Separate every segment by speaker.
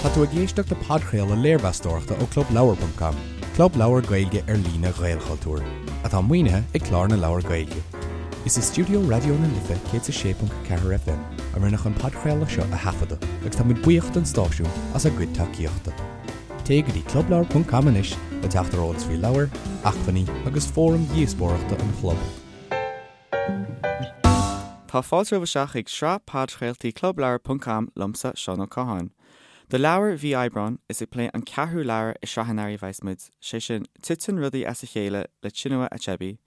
Speaker 1: Tá tú ag éisteacht le podchraoladh léirmheastóireachta ó ClubLeabhar.com, club leabhar Gaeilge ar líne Ghaelchultúir, atá maoinithe ag Clár na Leabhar Gaeilge. Is i stiúideo Raidió na Life 106.4 FM a rinneadh an podchraoladh seo a thaifeadadh agus tá muid buíoch don stáisiún as a gcuid tacaíochta. Téigh go dtí clubleabhar.com anois le teacht ar eolas faoi leabhair, acmhainní agus fóraim dhíospóireachta an chlub.
Speaker 2: Tá fáilte romhaibh isteach chuig sraith podchraoltaí Clubleabhar ponc com liomsa, Seán Ó Catháin. Do leabhar mhí Aibreáin, is ag plé an ceathrú leabhar i sraith an earraigh a bheas muid, sé sin Titeann Rudaí as a Chéile le Chinua Achebe,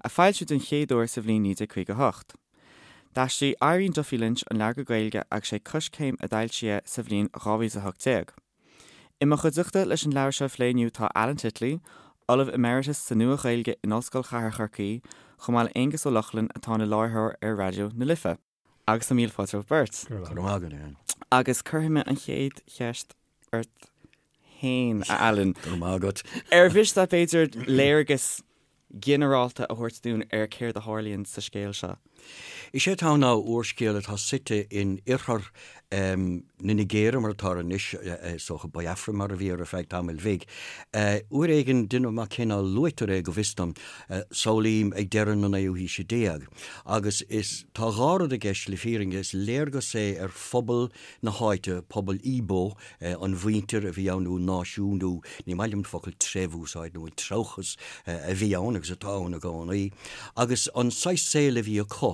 Speaker 2: a foilsíodh den chéad uair sa bhliain 1958. D'aistrigh Irene Duffy Lynch an leabhar go Gaeilge agus sé Coiscéim a d'fhoilsigh é sa bhliain 2018. I mo chuideachta leis an leabhar seo a phlé inniu tá Alan Titley, Ollamh Emeritus sa Nua-Ghaeilge in Ollscoil Chathair Chorcaí, chomh maith le Aonghus Ó Lochlainn atá ina láithreoir ar Raidió na Life. Agus tá míle fáilte romhaibh beirt.
Speaker 3: Go raibh maith agat, Alan.
Speaker 2: Agus cuirfidh mé an chéad cheist ort féin, a Alan.
Speaker 3: Go raibh maith agat.
Speaker 2: Ar mhiste leat b'fhéidir léargas ginearálta a thabhairt dúinn ar céard a tharlaíonn sa scéal seo.
Speaker 3: Is é atá ann ná úrscéal atá suite in oirthear na Nigéire mar atá anois, is dócha Biafra mar a bhí air ar feadh tamaill bhig. Uair éigin, déanaim amach cén fáth luaitear é go bhfios dom, samhlaím ag deireadh na naoú haoise déag. Agus is, tá dhá rud i gceist le fírinne, is léargas é ar phobal na háite, pobal Igbo, an mhuintir a bhí ann nó náisiún nó ní maith liom an focal treibh a úsáid nó an treabhchas a bhí ann agus atá ann i gcónaí agus an saghas saoil a bhí acu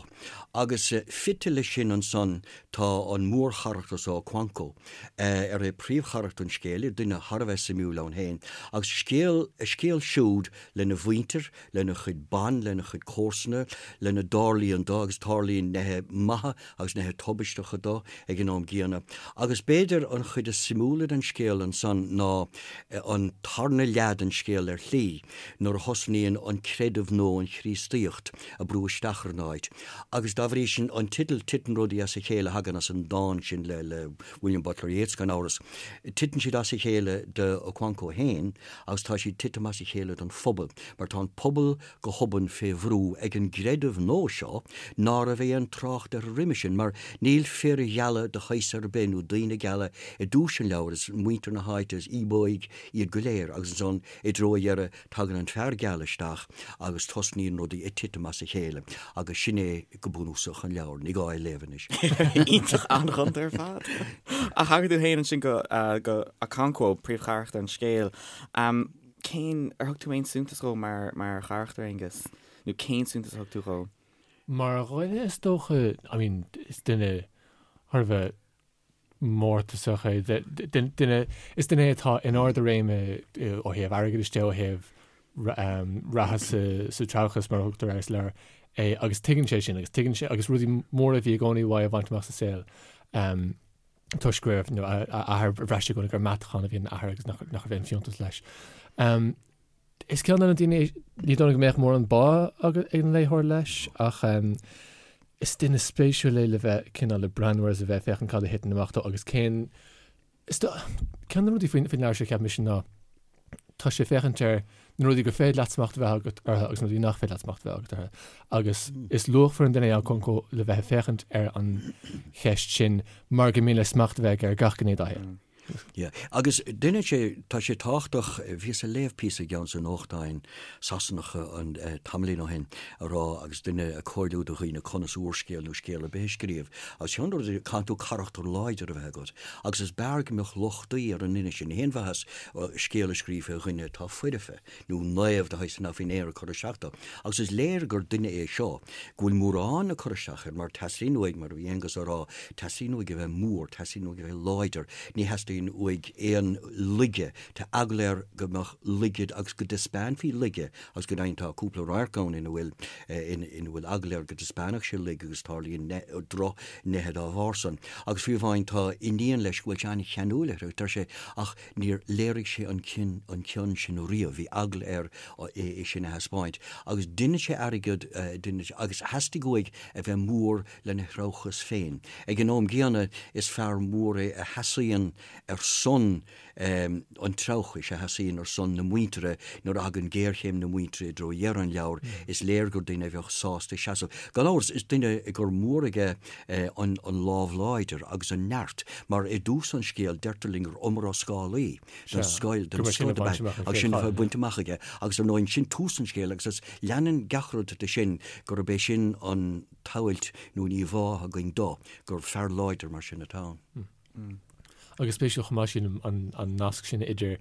Speaker 3: agus fite leis sin ansan tá an mórcharachtar so Okonkwo ar é príomhcharachtar an scéil, duine thar a bheith suimiúil ann féin agus scéal, a scéal siúd lena mhuintir, lena chuid ban, lena chuid comharsana, lena dtarlaíonn dó agus tarlaíonn neithe maithe agus neithe tubaisteacha dó ag an am gcéanna. Agus b'fhéidir an chuid is suimiúla den scéal ansan ná an tarna leath den scéal ar shlí, nuair a thosnaíonn an creideamh nua, an Chríostaíocht, ag brú isteach ar an áit. Agus dá bhrí sin, an teideal Titeann Rudaí as a Chéile a thagann as an dán sin le William Butler Yeats, gan amhras. Titeann siad as a chéile do Okonkwo féin agus tá siad titim as a chéile don phobal, mar tá an pobal go hobann fé bhrú ag an gcreideamh nua seo ná raibh aon trácht air roimhe sin, mar níl fir gheala de shaghas ar bith nó daoine geala i dtús an leabhair, is muintir na háite, is Íobóigh iad go léir, agus ansan i dtreo a dheireadh tagann an fear geal isteach agus tosnaíonn rudaí ag titim as a chéile, agus sin é go bunúsach an leabhar, ní gá é a léamh anois.
Speaker 2: Iontach an-ghonta ar fad. Ach thagair tú féin ansin go go Okonkwo, príomhcharachtar an scéil. Cén, ar thug tú aon suntas dhó mar mar charachtar, Aonghus? Nó cén suntas a thug tú dhó?
Speaker 4: Mar dhuine is dócha, I mean, is duine thar a bheith mórtasach é, duine, is duine é atá in ard a réime ó thaobh airgeadais de, ó thaobh reatha sa treabhchas mar a thugtar air sa leabhar é agus tuigeann sé sin agus tuigeann sé agus rudaí móra a bhí i gcónaí uaidh a bhaint amach sa saol. Toisc go raibh a athair, bhraith sé i gcónaí gur meatachán a bhí ina athair agus nach raibh aon fiúntas leis. Is ceann de na daoine, ní dóigh liom go mbeadh mórán bá ag an léitheoir leis, ach is duine spéisiúil é le bheith cineál ag breathnú air is a bheith ag féachaint cad a thiteann amach dó agus cén Is ceann de na rudaí faoin leabhar seo, cheap mise, ná tá sé ag féachaint ar na rudaí gur féidir leat smacht a bheith agat orthu agus na rudaí nach féidir leat smacht a bheith agat orthu. Agus is luachmhar an duine é Okonkwo le bheith ag féachaint ar an cheist sin mar gur mian leis smacht a bheith aige ar gach gné dá shaol.
Speaker 3: Yeah. Agus duine sé, tá sé tábhachtach, bhíos ag léamh píosa i gceann de na nuachtáin Sasanacha an tamaillín ó shin a rá agus duine ag comhairliú do dhaoine conas úrscéal nó scéal ar bith a scríobh agus ceann de na rudaí, caithfidh tú carachtar láidir a bheith agat agus is b'fhearr go mbeadh lochtaí ar an nduine sin. Ní haon mhaitheas scéal a scríobh fé dhuine atá foirfe nó naomh de shaghas nach bhfuil aon rud ag cur isteach dó. Agus is léir gur duine é seo go bhfuil mórán ag cur isteach air mar teastaíonn uaidh, mar a bhí Aonghus á rá, teastaíonn uaidh a bheith mór, teastaíonn uaidh a bheith láidir, ní theastaíonn uaidh aon laige, tá eagla air go mbeadh laige agus go dtaispeánfaí laige agus go deimhin tá cúpla radharc ann ina bhfuil ina bhfuil eagla air go dtaispeánfadh sé laige agus tarlaíonn drochnithe dá bharr san. Agus fiú amháin tá iníon leis go bhfuil sé an-cheanúil uirthi, deir sé, ach Níor léirigh sé an cion, an cion sin riamh, bhí eagla air é sin a thaispeáint. Agus deineann sé airgead, deineann sé, agus theastaigh uaidh a bheith mór lena threabhchas féin. Ag an am gcéanna, is fear mór é a sheasaíonn ar son an treabhchais, a sheasaíonn ar son na muintire nuair a thagann géarchéim na muintire i dtreo dheireadh an leabhair, is léir gur duine a bheadh sásta seasamh. Gan amhras, is duine gur mór aige an lámh láidir agus an neart, mar i dtús an scéil deirtear linn gur iomrascálaí den scoil, den scoth ab ea, agus sin atá bainte amach aige. Agus ar ndóigh, sin tús an scéil agus is leanann gach rud de sin gurb é sin an tsamhailt nó an íomhá atá againn dó, gur fear láidir mar sin atá
Speaker 4: ann. Agus spéisiúil chomh maith sílim an nasc sin idir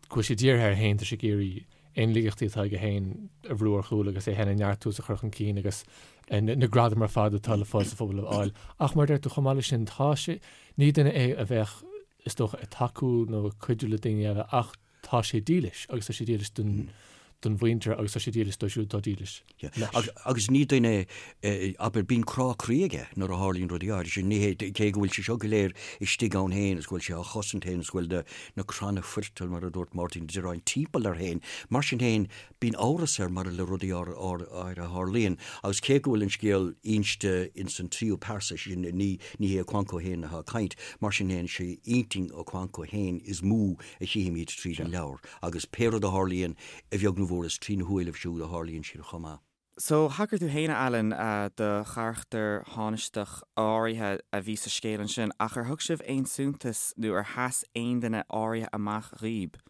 Speaker 4: go bhfuil sé dírithe air féin, tá sé ag iarraidh aon laigeachtaí atá aige féin a bhrú ar chúl agus é féin a neartú is a chur chun cinn agus na gradaim ar fad atá le fáil sa phobal a fháil. Ach mar a deir tú, chomh maith leis sin, tá sé, ní duine é a bheadh, is dócha, ag tacú nó ag cuidiú le daoine eile ach tá sé dílis agus tá sé dílis don don mhuintir agus tá sé dílis dóibh siúd atá dílis
Speaker 3: leis. Agus ní duine é, abair, bíonn crá croí aige nuair a tharlaíonn rudaí áirithe sin. Ní hé, cé go bhfuil sé seo go léir istigh ann féin is go bhfuil sé á chosaint féin is go bhfuil na na cranna foirtil, mar a dúirt Máirtín Ó Direáin, timpeall air féin, mar sin féin, Bíonn amhras air maidir le rudaí áirithe a tharlaíonn, agus cé go bhfuil an scéal inste ins an tríú pearsa, sé sin, ní hé Okonkwo féin atá ag caint, mar sin féin, sé intinn Okonkwo féin is mó a chífimid tríd an leabhar, agus pé rud a tharlaíonn, a bheag nó a mhór, is trína shúilibh siúd a tharlaíonn siad chomh maith.
Speaker 2: So, thagair tú féin, a Alan, do charachtar thánaisteach áirithe a bhí sa scéal ansin, ach ar thug sibh aon suntas nó ar sheas aon duine áirithe amach dhaoib?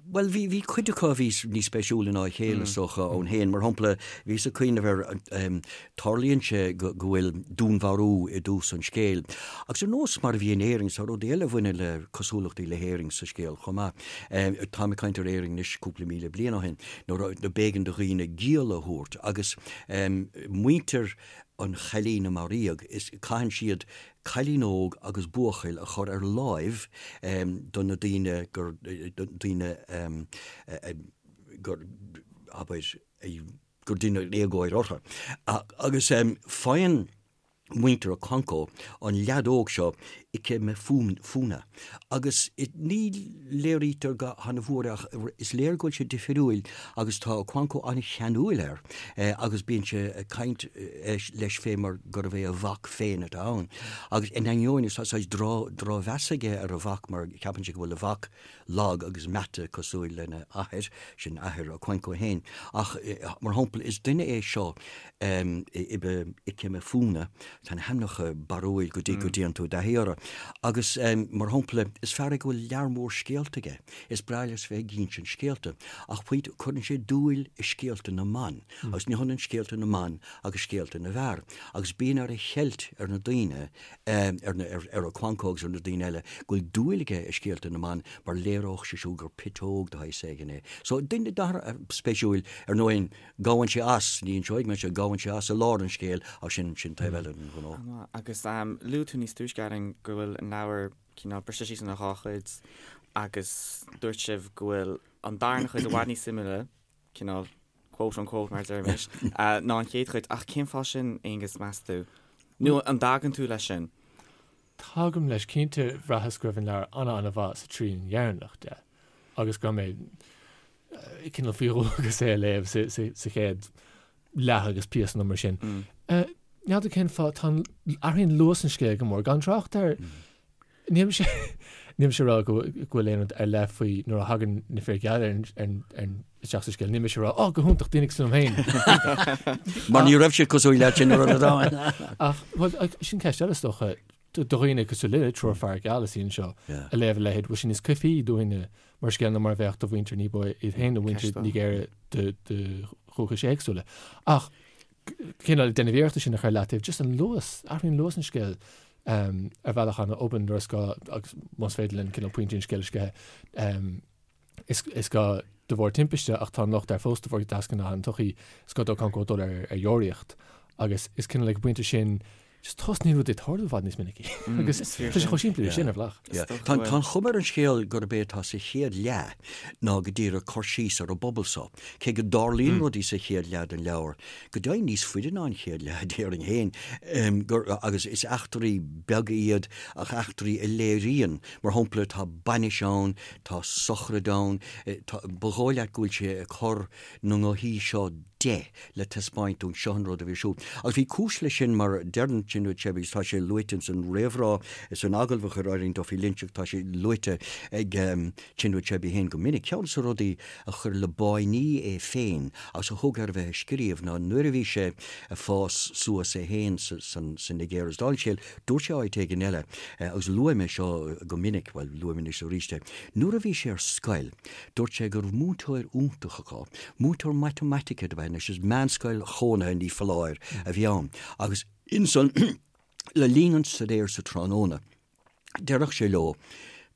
Speaker 3: Bhuel, bhí, bhí cuid acu a bhí níos spéisiúla ná a chéile, is dócha, ann féin. Mar shampla, bhíos ag cuimhneamh ar, tarlaíonn sé go, go bhfuil dúnmharú i dtús an scéil. Agus ar nós mar a bhí in Éirinn, tá rudaí eile a bhaineann le cosúlachtaí le hÉirinn sa scéal chomh maith. Táim ag caint ar Éirinn anois cúpla míle bliain ó shin, nuair a, b'éigean do dhaoine giall a thabhairt agus muintir an chailín a maraíodh, is, caitheann siad cailín óg agus buachaill a chur ar láimh do na daoine gur, daoine gur, abair, gur deineadh éagóir orthu. Agus faigheann muintir Okonkwo an leaid óg seo, Ikemefuna, agus ní léirítear go han-mhór é ach is léir go bhfuil sé difriúil agus tá Okonkwo an-cheanúil air agus bíonn sé ag caint leis fé mar gurbh é a mhac féin atá ann. Agus in ainneoin is tá saghas drochmheas aige ar a mhac mar ceapann sé go bhfuil a mhac lag agus meata cosúil lena athair, sin athair Okonkwo féin. Ach mar shampla is duine é seo Ikemefuna, tá na hainmneacha barrúil go dtí go dtéann tú i dtaithí orthu. Agus mar shampla is fear é go bhfuil lear mór scéalta aige. Is breá leis bheith ag insint scéalta. Ach pointe, cuireann sé dúil i scéalta na mban. Agus ní hionann scéalta na mban agus scéalta na bhfear. Agus bíonn air a cheilt ar na daoine, ar Okonkwo agus ar na daoine eile, go bhfuil dúil aige i scéalta na mban mar léireodh sé siúd gur piteog de shaghas éigin é. So, duine spéisiúil, ar ndóigh, gabhann sé as, ní inseoidh mé seo, gabhann sé as i lár an scéil ach sin, sin taobh eile den ghnó.
Speaker 2: Agus luaigh tú níos túisce, Alan, go bhfuil an leabhar cineál briste síos ina dhá chuid agus dúirt sibh go bhfuil an darna chuid i bhfad níos suimiúla, cineál quote unquote mar a deirimis, ná an chéad chuid. Ach cén fáth sin, Aonghus, meas tú? Nó an dtagann tú leis sin?
Speaker 4: Tagaim leis. Cinnte, bhraitheas go raibh an leabhar ana-ana-mhaith sa trian dheireanach de agus go raibh mé cineál faoi dhualgas é a léamh sa chéad leath agus píosa nó mar sin. N'fheadar cén fáth, tá an, athraíonn luas an scéil go mór, gan trácht ar, níl mise, níl mise ag rá go bhfuil aon rud ar leith faoi nuair a thagann na fir gheala ar an, ar an, isteach sa scéal, níl mise ag rá, oh, go hiontach, daoine cosúil liom
Speaker 3: féin. Mar ní raibh siad cosúil leat sin nuair a raibh
Speaker 4: Ach, bhuel, sin ceist eile is dócha, do dhaoine cosúil linne, triúr fear geal a suí anseo, a léamh a leithéid, bhfuil sé níos coimhthíí dúinne mar scéal ná mar a bheadh do mhuintir ní ba iad féin nó muintir Nigéire de dhúchais éagsúla. Ach cineál ag déanamh iarrachta sin a chur leataobh, just an luas, athraíonn luas an scéil ar bhealach an-obann nuair is gá agus más féidir linn cineál pointí an scéil a sceitheadh. Is gá de bharr timpiste ach tá an locht air fós de bharr deasghnáth an tsochaí, is gá d'Okonkwo dul ar deoraíocht agus is cineál ag an bpointe sin Just tosnaíonn rudaí ag tarlú i bhfad níos minicí. Agus tá sé chomh simplí leis sin ar bhealach.
Speaker 3: Tá an chuma ar an scéal gurb é atá sa chéad leath ná go díreach cur síos ar an bpobal so. Cé go dtarlaíonn rudaí sa chéad leath den leabhar, go deimhin níos faide ná an chéad leath déarfainn féin, agus is eachtraí beaga iad ach eachtraí a léiríonn, mar shampla, tá bainis ann, tá sochraid ann, ba dhóigh leat go bhfuil sé ag cur na ngothaí seo. 10 le taispeáint dúinn seo an rud a bhí ar siúl. Agus bhí cúis leis sin mar deireann Chinua Achebe agus tá sé luaite ins an réamhrá is san agallamh a chuir Eileen Duffy Lynch agus tá sé luaite ag Chinua Achebe féin go minic. Ceann de na rudaí a chuir le báiní é féin agus a thug air a bheith ag scríobh ná nuair a bhí sé ag fás suas é féin sa Nigéir agus dála an scéil dúirt sé áit éigin eile agus luaigh mé seo go minic, bhuel luaim anois arís é, nuair a bhí sé ar scoil dúirt sé go raibh múinteoir iontach acu, múinteoir matamaitice dob ea anois, is meánscoil chónaithe ní foláir a bhí ann agus insan le linn an staidéir sa tráthnóna Déarfadh sé leo,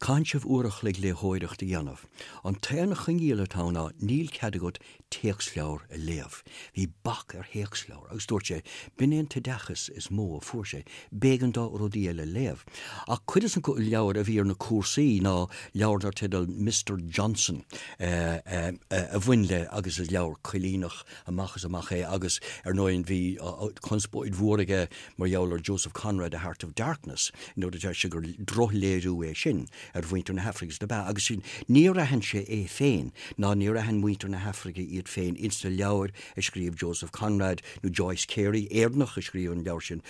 Speaker 3: Caitheann sibh uair a chloig léitheoireacht a dhéanamh. An t-aon choinníoll atá ann ná níl cead agat téacsleabhar a léamh. Bhí bac ar théacsleabhair agus dúirt sé, b'in é an t-oideachas is mó a fuair sé, b'éigean dó rudaí eile a léamh. Ach cuid de na leabhair a bhí ar na cúrsaí ná leabhar dar teideal Mister Johnson a bhain le agus is leabhar coilíneach amach is amach é agus ar ndóigh bhí conspóid mhór aige Mar gheall ar Joseph Conrad, A Heart of Darkness, nuair a deir sé gur drochléiriú é sin ar mhuintir na hAfraice agus dob ea, agus sin, níor aithin sé é féin, ná níor aithin muintir na hAfraice iad féin ins na leabhair a scríobh Joseph Conrad nó Joyce Cary, Éireannach a scríobh an leabhar sin,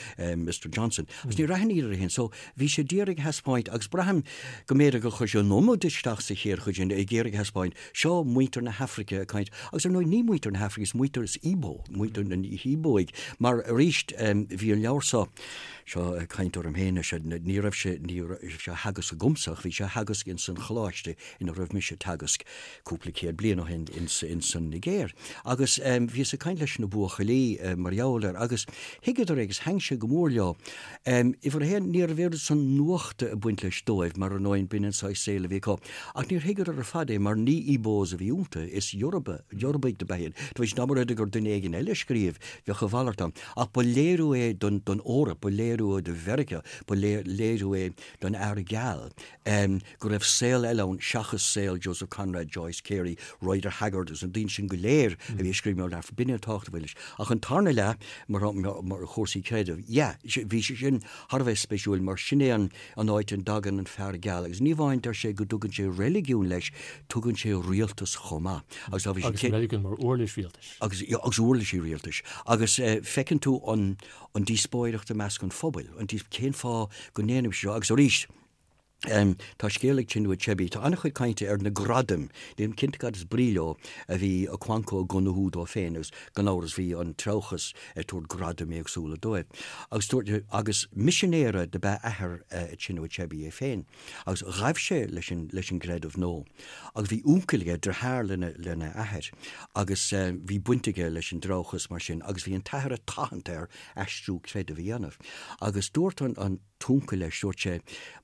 Speaker 3: Mister Johnson. Agus níor aithin iad féin. So, bhí sé d'iarraidh a thaispeáint, agus braithim go mb'fhéidir gur chuir sé an iomad isteach sa chéad chuid sin, ag iarraidh a thaispeáint, Seo muintir na hAfraice ag caint, agus ar ndóigh ní muintir na hAfraice, is muintir, is Igbo, muintir na hÍobóigh, mar arís bhí an leabhar seo, seo ag caint orm féin anois, ní raibh sé, ní raibh sé á theagasc agamsa ach bhí sé á theagasc ins an choláiste ina raibh mise ag teagasc cúpla céad bliain ó shin ins, ins an Nigéir. Agus bhíos ag caint leis na buachaillí mar gheall air agus thuigeadar é agus thaitin sé go mór leo. Uimhir a haon, ní raibh oiread san nuachta ag baint leis dóibh, mar ar ndóigh, b'in an saghas saoil a bhí acu. Ach níor thuigeadar ar fad é, mar ní Ibos a bhí iontu, is Yoruba, Yorubaigh dob ea iad. Tar éis dá mba rud é gur duine éigin eile a scríobh, bheadh a mhalairt ann. Ach ba léiriú é don, don Eoraip, ba léiriú é do Mheiriceá, ba léiriú é don fhear geal. go raibh saol eile ann seachas saol Joseph Conrad, Joyce Cary, Rider Haggard agus na daoine sin go léir a bhí ag scríobh mar b'in an tábhacht a bhain leis. Ach an tarna leath, mar mar chúrsaí creidimh, yeah, bhí sé sin thar a bheith spéisiúil mar sin é an an áit a dtagann an fear geal agus ní amháin deir sé go dtugann sé reiligiún leis, tugann sé rialtas chomh maith.
Speaker 4: Agus dá bhí sé Agus reiligiún mar uirlis rialtais.
Speaker 3: Agus agus uirlisí rialtais. Agus feiceann tú an an díospóireacht i measc an phobail, an cén fáth go ndéanaimse seo agus arís, Tá scéal ag Chinua Achebe. Tá an-chuid cainte ar na gradaim, nílim cinnte cad is brí leo, a bhí Okonkwo ag gnóthú dó féin agus gan amhras bhí an treabhchas ag tabhairt gradaim éagsúla dóibh. Agus dúirt, agus misinéara dob ea athair Chinua Achebe é féin agus ghabh sé leis an, leis an gcreideamh nua. Agus bhí uncail aige, deartháir lena, lena athair agus bhí baint aige leis an dtreabhchas mar sin agus bhí an t-athair ag tathant air aistriú creidimh a dhéanamh. Agus dúirt an, an. t-uncail leis, dúirt sé,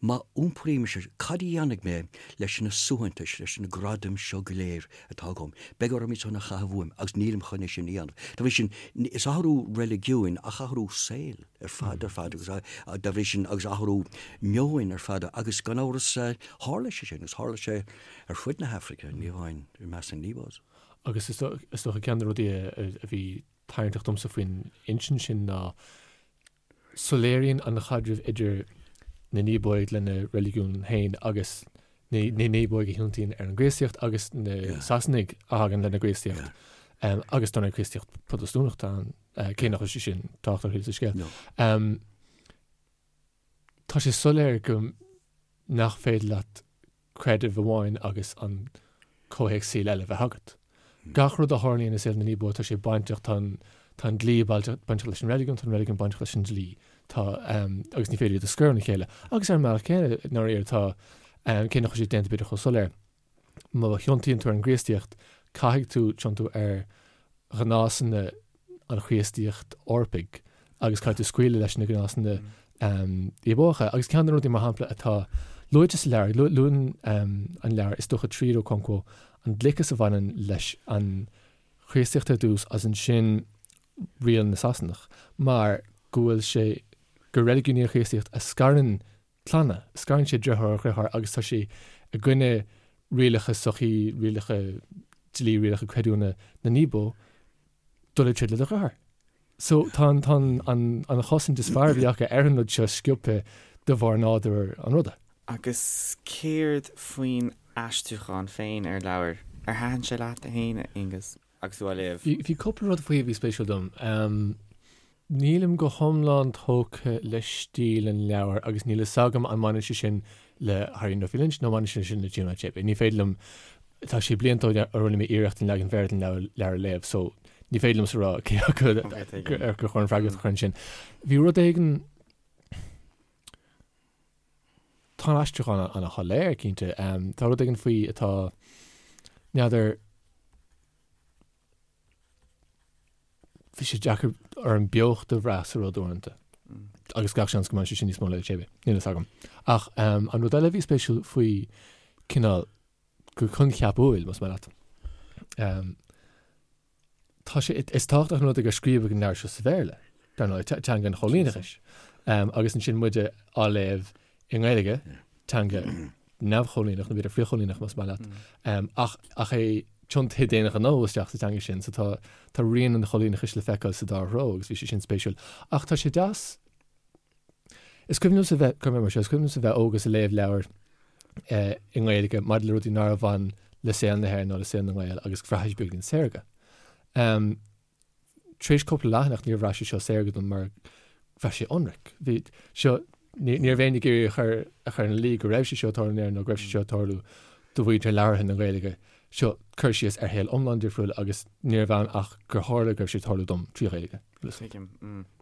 Speaker 3: má iompraím mise, cad a dhéanfaidh mé leis na suaitheantais, leis na gradaim seo go léir atá agam? Beidh orm iad san a chaitheamh uaim agus nílim chun é sin a dhéanamh. Dá bhrí sin, is athrú reiligiúin ach athrú saoil ar fad ar fad agus dá bhrí sin agus athrú meoin ar fad agus gan amhras tharla sé sin agus tharla sé ar fud na hAfraice, ní amháin i measc na
Speaker 4: nIbos. Agus is dócha ceann de na rudaí a bhí tarraingteach domsa faoin insint sin ná Soiléiríonn an chaidreamh idir na nÍobóigh lena reiligiún féin agus na nÍobóigh a thiontaíonn ar an gCríostaíocht agus na Sasanaigh a thagann lena gCríostaíocht agus dar ndóigh Críostaíocht Protastúnach atá ann, cé nach bhfuil sé sin tábhachtach ar sa scéal. Tá sé soiléir go nach féidir leat creideamh amháin agus an comhthéacs saoil eile a bheith agat. Gach rud a tharlaíonn i saol na nÍobó, tá sé bainteach, tá an, tá an dlí bainteach leis an reiligiún, tá an reiligiún bainteach leis an dlí, tá, agus ní féidir iad a scoir óna chéile. Agus ar an mbealach céanna, i ndáiríre, tá, cé nach bhfuil sé déanta b'fhéidir chomh soiléir, má thiontaíonn tú ar an gCríostaíocht, caithfidh tú tiontú ar ghnásanna an Chríostaíocht Eorpaigh agus caithfidh tú scaoileadh leis na gnásanna Íobócha. Agus ceann de na rudaí, mar shampla, atá luaite sa leabhar, luann an leabhar, is dócha tríd Okonkwo, an gliceas a bhaineann leis an Chríostaíocht ar dtús agus ansin riail na Sasanach, mar go bhfuil sé, gur reiligiún í an Chríostaíocht a scarann clanna, scarann sé deartháir ó dheartháir agus tá sé i gcoinne rialacha sochaí, rialacha dlí, rialacha creidiúna na nÍbo dul ag troid le do dheartháir. So tá an, tá an, an, an chosaint is fearr a bhí acu ar an rud seo sciobtha de bharr nádúr an ruda.
Speaker 2: Agus céard faoin aistriúchán féin ar an leabhar? Ar thaitin sé leat féin, a Aonghus? agus tú á léamh?
Speaker 4: Bhí cúpla rud faoi a bhí spéisiúil dom. Nílim go hiomlán tógtha le stíl an leabhair agus níl fhios agam an mbaineann sé sin le Harry Duffy Lynch nó mbaineann sé sin le Chinua Achebe. Ní féidir liom, tá sé blianta ó a rinne mé iarracht an leagan Bhéarla den leabhar a léamh so ní féidir liomsa rá cé acu ar gur chóir an freagracht a chur ansin. Bhí rud éigin, tá an aistriúchán ana-shoiléir cinnte, tá rud éigin faoi atá, n'fheadar, Bhí sé deacair orm beocht a bhrath sa rud uaireanta. Agus gach seans go mbaineann sé sin níos mó le Achebe, níl fhios agam. Ach an rud eile a bhí spéisiúil faoi cineál go coincheapúil, más maith leat, tá sé, is tábhachtach an rud é gur scríobhadh an leabhar seo sa Bhéarla, dar ndóigh, teanga an choilíneachais. Agus ansin muide á léamh i nGaeilge, teanga neamhchoilíneach, nó b'fhéidir frithchoilíneach más maith leat, ach ach é tiontaithe d'aon ghnó isteach sa teanga sin, so tá tá rian an choilíneachais le feiceáil sa dá threo agus bhí sé sin spéisiúil. Ach tá sé deas, is cuimhin liomsa bheith, cuirfidh mé mar seo, is cuimhin liomsa bheith óg agus ag léamh leabhar i nGaeilge maidir le rudaí nár bhain le saol na hÉireann nó le saol na nGael agus bhraith sé beagáinín saorga. Tar éis cúpla leathanach níor bhraith sé seo saorga dom mar bhraith sé ionraic. Bhí seo, ní raibh éinne ag iarraidh a chur a chur ina luí go raibh sé seo ag tarlú in Éirinn nó go raibh sé seo ag tarlú do mhuintir labhartha na Gaeilge. Seo cur síos ar shaol iomlán difriúil agus ní raibh ann ach gur tharla go raibh sé ag tarlú dom trí Ghaeilge.
Speaker 2: Tuigim.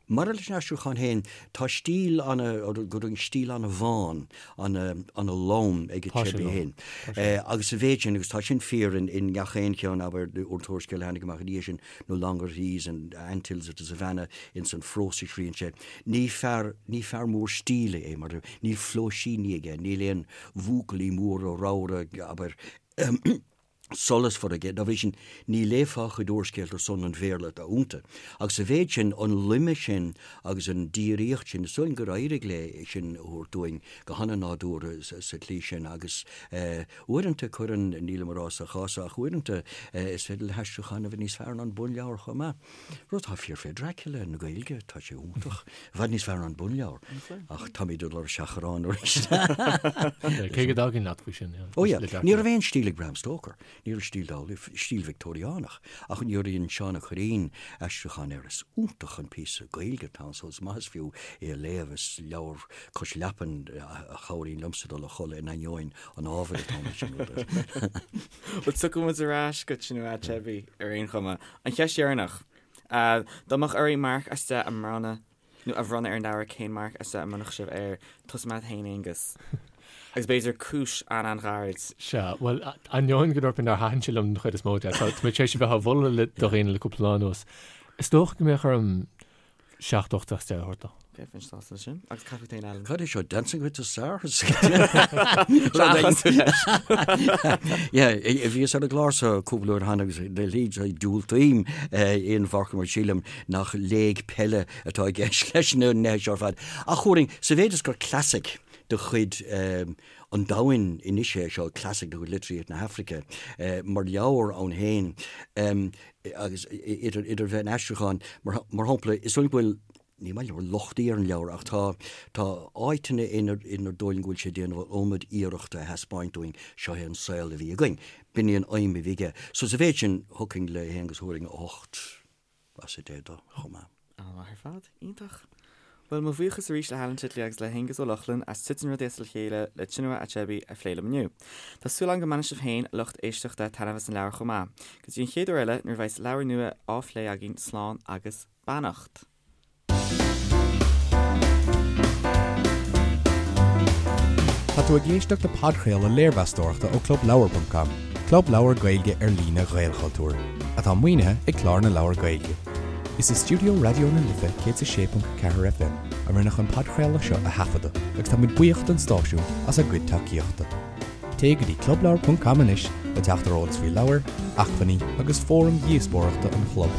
Speaker 3: Maidir leis an aistriúchán féin, tá stíl ana, go deimhin stíl ana-bhán, ana-lom ag Achebe féin. Agus sa mhéid sin, agus tá sin fíor in ngach aon cheann, abair, an t-úrscéal a tháinig amach ina dhiaidh sin, No Longer at Ease and Anthills of the Savannah, ins an phrós a scríonn sé, ní fear, ní fear mór stíle é, mar níl flóisíní aige, níl aon bhuachaillí móra ramhra, abair, solasmhar aige. Dá bhrí sin, ní léifeá a chuid úrscéalta ar son an Bhéarla atá iontu. Agus sa mhéid sin, an loime sin agus an díríocht sin, is dóigh liom gur éirigh léi sin a thabhairt dúinn go han-nádúrtha sa tslí sin. Agus uaireanta cuireann, nílim a rá sa chás seo, ach uaireanta is féidir le haistriúchán a bheith níos fearr ná an bunleabhar chomh maith. Rud atá fíor fé Dracula na Gaeilge, tá sé iontach. I bhfad níos fearr ná an bunleabhar. Ach táimid ag dul ar seachrán arís.
Speaker 4: Cé go dtagainn leat faoi sin.
Speaker 3: Ó yeah, ní raibh aon stíl ag Bram Stoker. Ní raibh stíl dá laghad, stíl Victeoiriánach. Ach nuair a dhein Seán Ó Cuirreáin aistriúchán air, is iontach an píosa Gaeilge atá ann, so is maith is fiú é a léamh. Is leabhar cois leapan a chabhraíonn liomsa dul a chodladh in ainneoin an ábhair atá ann sin rud air.
Speaker 2: Bhuel, tiocfaidh muid ar ais go Chinua Achebe ar aon chuma. An cheist dheireanach. Dá mbeadh oraibh marc as 10 a mbronnadh nó a bhronnadh ar an leabhar, cén marc as 10 a mbronnfadh sibh air? Tosóidh mé leat féin, Aonghus. Agus b'fhéidir cúis an-an-ghairid.
Speaker 4: Sea, bhuel, ainneoin go ndúirt mé nár thaitin sé liom den chuid is mó de, tá mé tar éis a bheith á mholadh do dhaoine le cúpla lá anuas. Is dócha go mbeadh orm 7 8 as 10 a thabhairt dó.
Speaker 2: Ok, bheinn sásta leis sin. Agus cad fút féin, Alan?
Speaker 3: Cad é seo, Dancing with the Stars? Yeah, bhíos ar an gclár seo cúpla uair cheana agus de shlí diúltaím aon mharc mar sílim nach léig peile atá i gceist leis na nithe seo ar fad. Ach thabharfainn, sa mhéid is gur classic de chuid an domhain anois é seo, classic de chuid litríocht na hAfraice, mar leabhar ann féin, agus idir idir bheith in aistriúchán, mar shampla, is dóigh liom go bhfuil, ní maith liom lochtaí ar an leabhar ach tá, tá áiteanna inar inar dóigh liom go bhfuil sé ag déanamh an iomad iarrachta a thaispeáint dúinn, seo é an saol a bhí againn. B'in í an aidhm a bhí aige. So sa mhéid sin, thiocfainn le hAonghus thabharfainn 8 as 10 dó chomh maith.
Speaker 2: An-mhaith ar fad. Iontach. Bhuel, mo bhuíochas arís le hAlan Titley agus le hAonghus Ó Lochlainn as Titeann Rudaí as a Chéile le Chinua Achebe a phlé liom inniu. Tá súil agam go mbainfidh sibh féin, a lucht éisteachta, taitneamh as an leabhar chomh maith. Go dtí an chéad uair eile, nuair a bheas leabhar nua á phlé againn, slán agus beannacht.
Speaker 1: Tá tú ag éisteacht le podchraoladh léirmheastóireachta ó ClubLeabhar.com, club leabhar Gaeilge ar líne Ghaelchultúir, atá maoinithe ag Clár na Leabhar Gaeilge. Is i stiúideo Raidió na Life 106.4 FM a rinneadh an podchraoladh seo a thaifeadadh agus tá muid buíoch don stáisiún as a gcuid tacaíochta. Téigh go dtí clubleabhar.com anois le teacht ar eolas faoi leabhair, acmhainní agus fóraim dhíospóireachta an chlub.